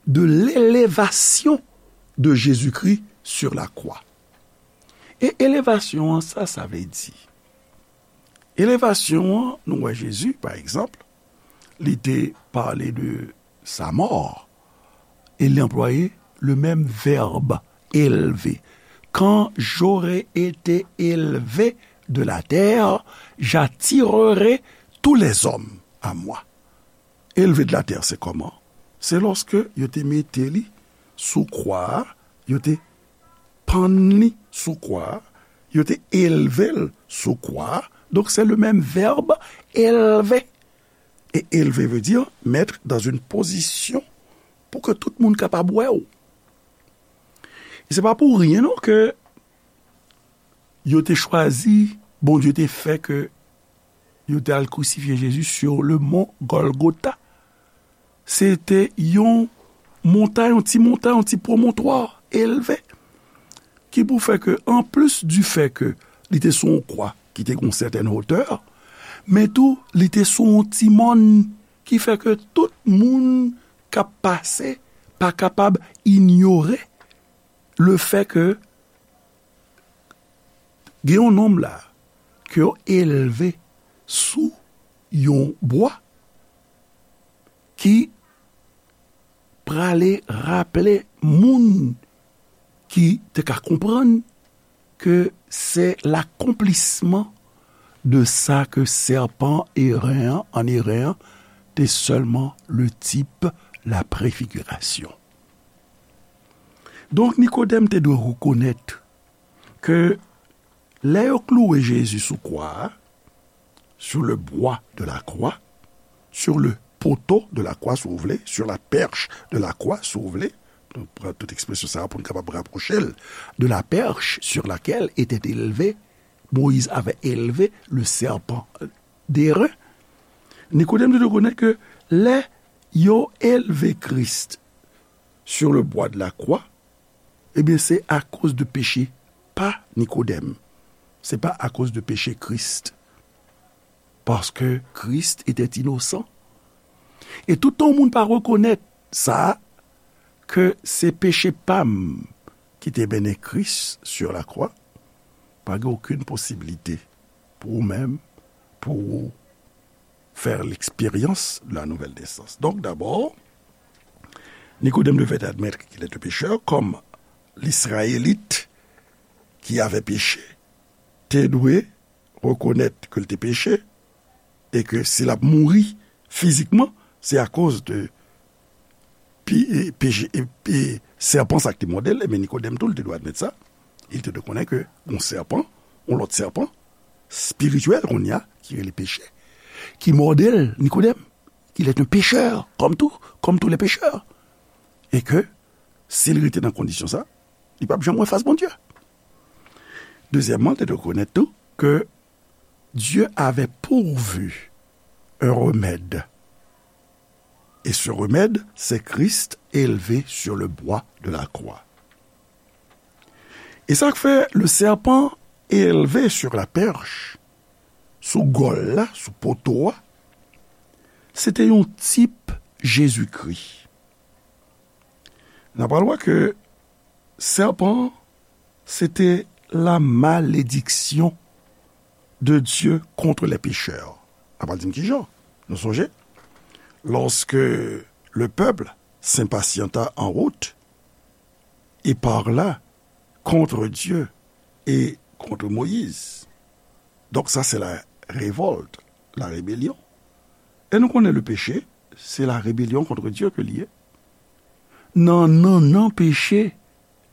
de l'élevation de Jésus-Christ sur la croix. E elevasyon an, sa sa vle di? Elevasyon an, nou wè Jezi, pa egzanp, li te pale de sa mò, e li anplwaye le menm vèb, elve. Quand j'aurai été élevé de la terre, j'attirerai tous les hommes à moi. Elve de la tè, se kòman? Se lòske yo te mete li sou kwa a, yo te pann li sou kwa a, yo te elve l sou kwa a. Donk, se le menm vèb, elve. E elve vle di, mettre dans une position pou ke tout moun kapab wè w. E se pa pou ryen non ke yo te chwazi, Bondye te fè ke yo te al krisifye Jezi sur le mont Golgotha. Se te yon montay, yon ti montay, yon ti pwomontwa elve, ki pou fè ke, anplis di fè ke li te sou yon kwa ki te gen yon sètèn wotè, men tou, li te sou yon ti mòn, ki fè ke tout moun k ap pase pa kapab inyore le fè ke gen yon nonm la ke yo elve sou yon bwa ki prale raple moun ki te ka konprann ke se lakonplisman de sa ke sèpan eren an, an eren an, te sèlman le tip, la prefigirasyon. Donk, Nikodèm te dwe rekonèt ke lè yo klouwe Jezi sou kwa a, sur le bois de la croix, sur le poteau de la croix, si w vle, sur la perche de la croix, si w vle, nou pran tout ekspresyon sa a pou n kapab rapwoche l, de la perche sur laquelle était élevé, Moïse avait élevé le serpent d'airain. Nikodèm te rekonèt ke lè yo elve Kris sur le bois de la croix, ebyen, se akoz de peche pa Nikodèm. Se pa akoz de peche Kris. Paske Kris était innocent. E toutan yon moun pa rekonèt sa, ke se peche pa m ki te mennen Kris sur la croix, pa gen okenn posibilite pou ou menm, pou ou fè l'expérience de la nouvelle naissance. Donc, d'abord, Nikodèm devait admettre qu'il était pécheur, comme l'Israélite qui avait péché te dwe rekonèt ke l te peche, e ke si l ap mouri fizikman, se akoz de pi, e, peche, e, e, sèpan sa k te mòde l, men Nikodèm tou, l te dwe admèt sa. Li te dwe konnen ke yon sèpan, yon lòt sèpan, espirityèl kounye a, ki rele peche, ki mòde l, Nikodèm, il est un pécheur, comme tout, comme tous les pécheurs. E ke, si l rete nan kondisyon sa, li p ap janm wè fas Bondye. Dezyèmman, l te dwe rekonèt tou ke Dieu avait pourvu un remède Et ce remède, c'est Christ élevé sur le bois de la croix. E sa k fè le serpent élevé sur la perche, sou gòl la, sou poto a, se te yon tip Jezikri. N a pral wè ke sèpan an, se te la malédiction de Dieu contre les pécheurs. N a pral di m kijan. Nou sonje, lorsque le peuple s'impatienta en route, et parla contre Dieu et contre Moïse. Donc ça, c'est la révolte, la rébellion. E nou konnen le péché, c'est la rébellion contre Dieu ke li ye. Nan nannan peche,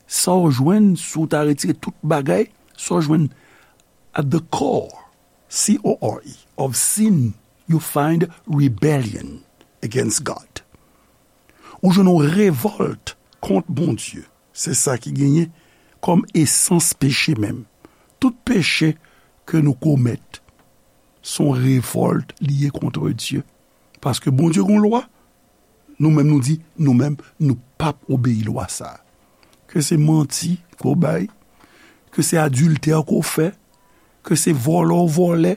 sa w jwenn, si w ta retire tout bagay, sa w jwenn at the core, C O R E, of sin, you find rebellion against God. Ou jwenn yon revòlt kont Bondye. Se sa ki genyen kòm esans peche menm. Tout peche ke nou komèt, se yon revòlt li ye kont Dye. Paske Bondye gen yon lwa, nou menm nou di, nou menm, nou p ap obeyi lwa sa a. Ke se manti ke w bay, ke se adiltè ke w fè, ke se vòlè w vòlè,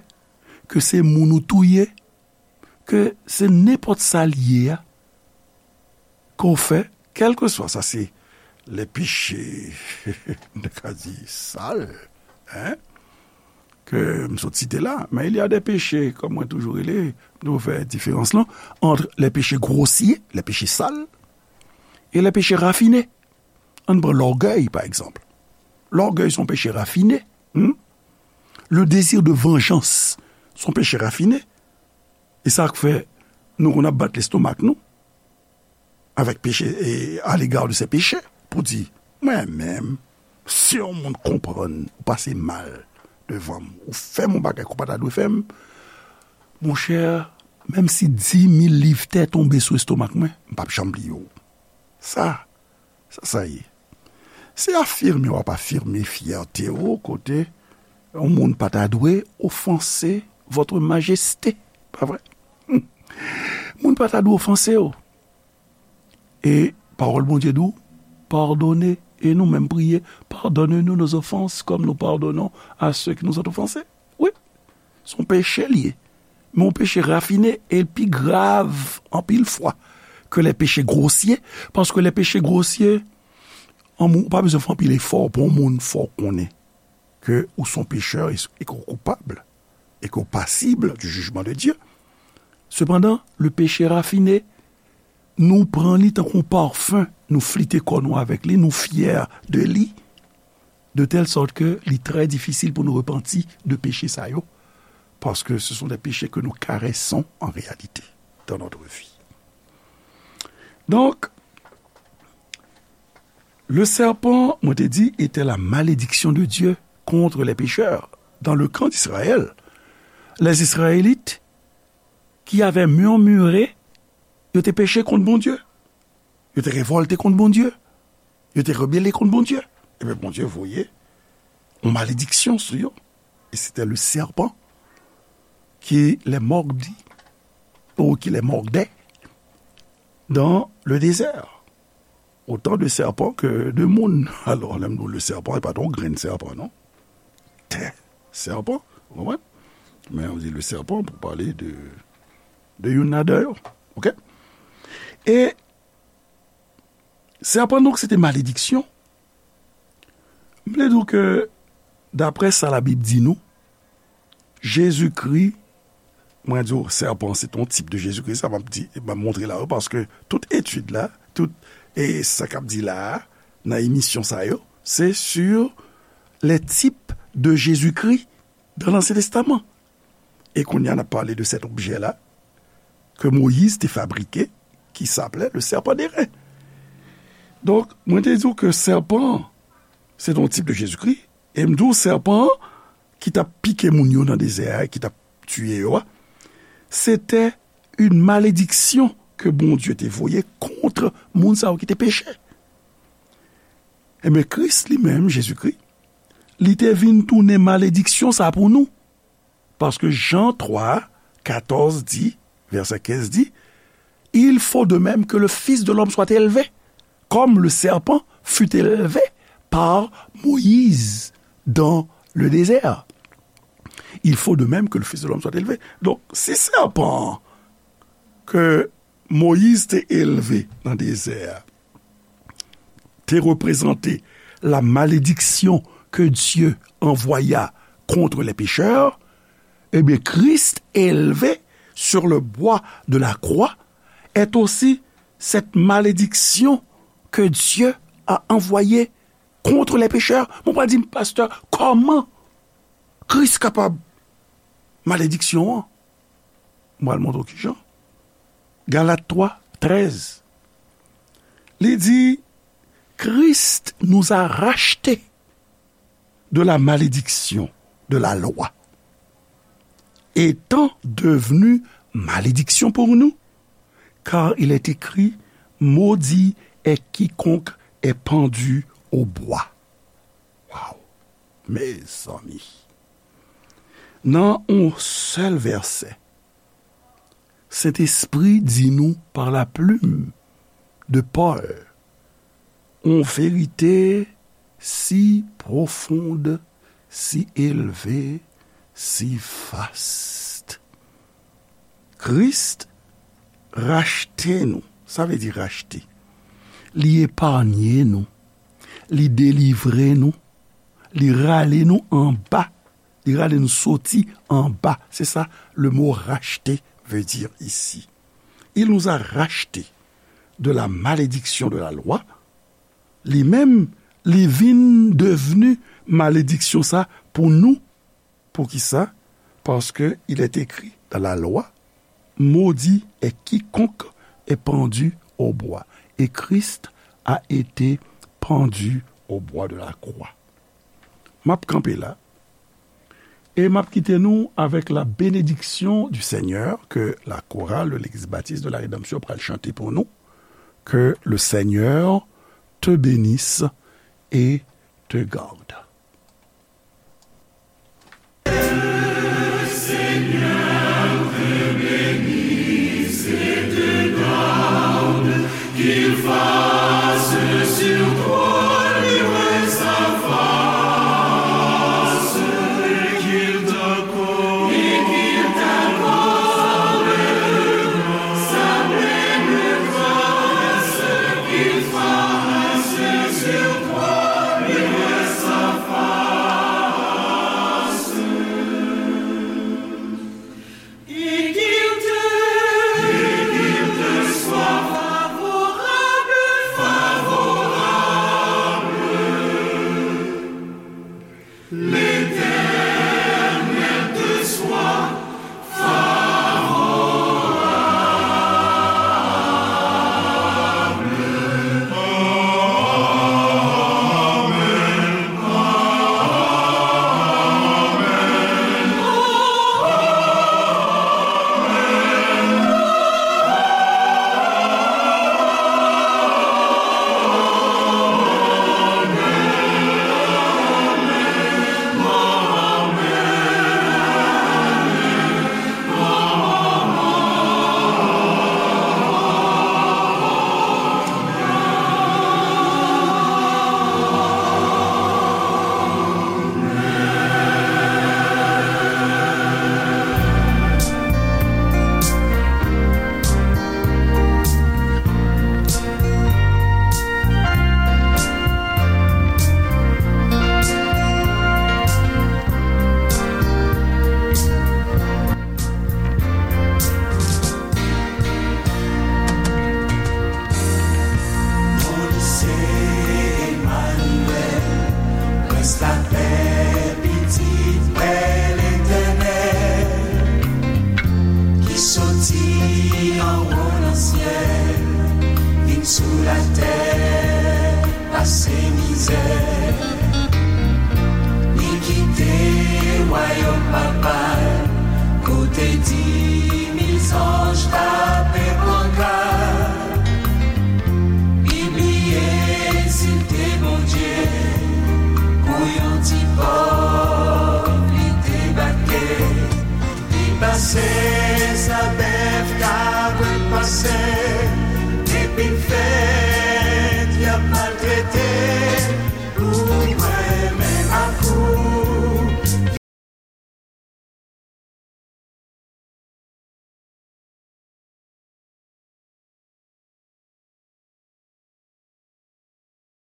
ke se moun ou touye, ke se nenpòt sa l ye a, ke w fè, kèlkeswa, sa se les péchés, m te ka di sal, hein, ke m sot site la. Men il y a des péchés, kòm mwen toujou rele, m toujou fè diferans lan, entre les péchés grossiers, les péchés sales, et les péchés raffinés. Ann pran lògèy, pa egzanp. Lògèy se yon peche rafine. Hmm? Le désir de vengeance se yon peche rafine. E sa k fè nou konn ap bat lestomak nou avèk peche, e, à l'égard de ces péchés, pou di, mwen menm, si yon moun konprann ou pase mal devan m, ou fè m yon bagay ke w pa ta dwe fè m, monchè, menm si dimil liv tè tonbe sou estomak mwen, m p ap janm bliye w. Sa, sa, sa ye. Se afime w ap afime fyète w kote yon moun pa ta dwe ofanse votre majesté, pa vre? Moun pa ta dwe ofanse w. E pawòl Bondye di w, padone, e nou menm priye, pardonne-nous nos offenses comme nous pardonnons à ceux qui nous ont offensés. Wi, se yon peche li ye. Men yon peche rafine, e l pi grav anpil fwa ke les péchés grossiers, paske les péchés grossiers, an moun, ou pa bezwen fè anpil efò pou yon moun fè w konnen ke ou se yon pechè e, e ke w koupab, e ke w pasib du jugement de Dieu. Sepandan, le péché raffiné, nou pran li tankou yon pafen, nou flite kò nou avèk li, nou fyè de li, de telle sorte que li trè difisil pou nou repanti de peche sa yo, parce que ce sont des péchés que nous caressons en réalité dans notre vie. Donc, le serpent, mwen te di, était la malédiction de Dieu contre les pécheurs. Dans le camp d'Israël, les Israélites qui avaient murmuré, yo te peche kont Bondye. Yo te revòlte kont Bondye. Yo te rebele kont Bondye. Ebyen, Bondye voye yon malediksyon sou yo. E se te le serpent qui les mordit, ou qui les mordait dans le désert. Autant de serpents que de moun. Alò, lè m di w le serpent, se pa t yon grenn sèpan, non. Tè, sèpan, ou konprann? Men ou di le serpent pou pale de, de youn ladan yo. Oke? E sèpan, donk, se te malediksyon. M vle di w ke, daprè sa Labib di nou, Jezikri, mwen di w, sèpan, se t on tip de Jezikri, sa m ap di, m ap montre la yo, paske tout etid la, tout, e sa k ap di la a, nan emisyon sa yo, se sur les types de Jésus-Christ dans l'Ancien Testament. E kounye a, n ap pale de cet objet-là que Moïse te fabriqué, qui s'appelait le serpent d'airain. Donk, mwen te di w ke sèpan an, se t on tip de Jezikri, e m di w sèpan an ki t ap pike moun yo nan dezè a, ki t ap tiye yo a, se te yon malediksyon ke Bondye te voye kont moun sa yo ki te peche. Ebyen, Kris li menm, Jezikri, li te vin tounen malediksyon sa pou nou. Paske Jan twa, katòz di, vèsè kenz di, Il faut de même que le Fils de l'homme soit élevé, comme le serpent fut élevé par Moïse dans le désert. Il faut de même que le Fils de l'homme soit élevé. Donk, si sèpan ke Moyiz te elve nan dezè a te reprezante la malédiction que Dieu envoya contre les pécheurs, eh bien, Christ élevé sur le bois de la croix est aussi cette malédiction que Dieu a envoyée contre les pécheurs. Mwen pral di, pastè, kòman Kris kapab malediksyon an? Mwen al montre w kijan. Galat twa, trèz. Li di, Christ nous a rachetés de la malédiction de la loi, étant devenu malédiction pour nous, car il est écrit, maudit est quiconque est pendu au bois. Waw! Mezanmi! Nan yon sèl vèsè, Sentespri di nou par la plume de Paul yon verite si pwofonn, si elve, si vast. Kris rachte nou. Sa vle di rachte. Li epanye nou. Li delivre nou. Li rale nou anba. Li rale nou soti anba. Se sa le mot racheter veut dire ici. Il nous a rachetés de la malédiction de la loi. Li menm, li vin devni malediksyon sa pou nou. Poukisa? Parce que il est écrit dans la loi, maudit est quiconque est pendu au bois. Et Christ a été pendu au bois de la croix. M ap kanpe la. E m ap kite nou avec la bénédiction du Seigneur que la chorale de l'Église Baptiste de la Rédemption pral chante pou nou. Que le Seigneur te bénisse et te garde. Moïse Emmanuel, prens lapè, pitit pè Letènèl, ki soti anwo nan syèl, vin sou latè, pase mizè. Li kite wayòm papa l, kote di mil zanj tape pankat. Li bliye si l te Bondye, pou yon ti pòv li debake. Li pase sa bèf, kabrit pase. Vin fèt, y ap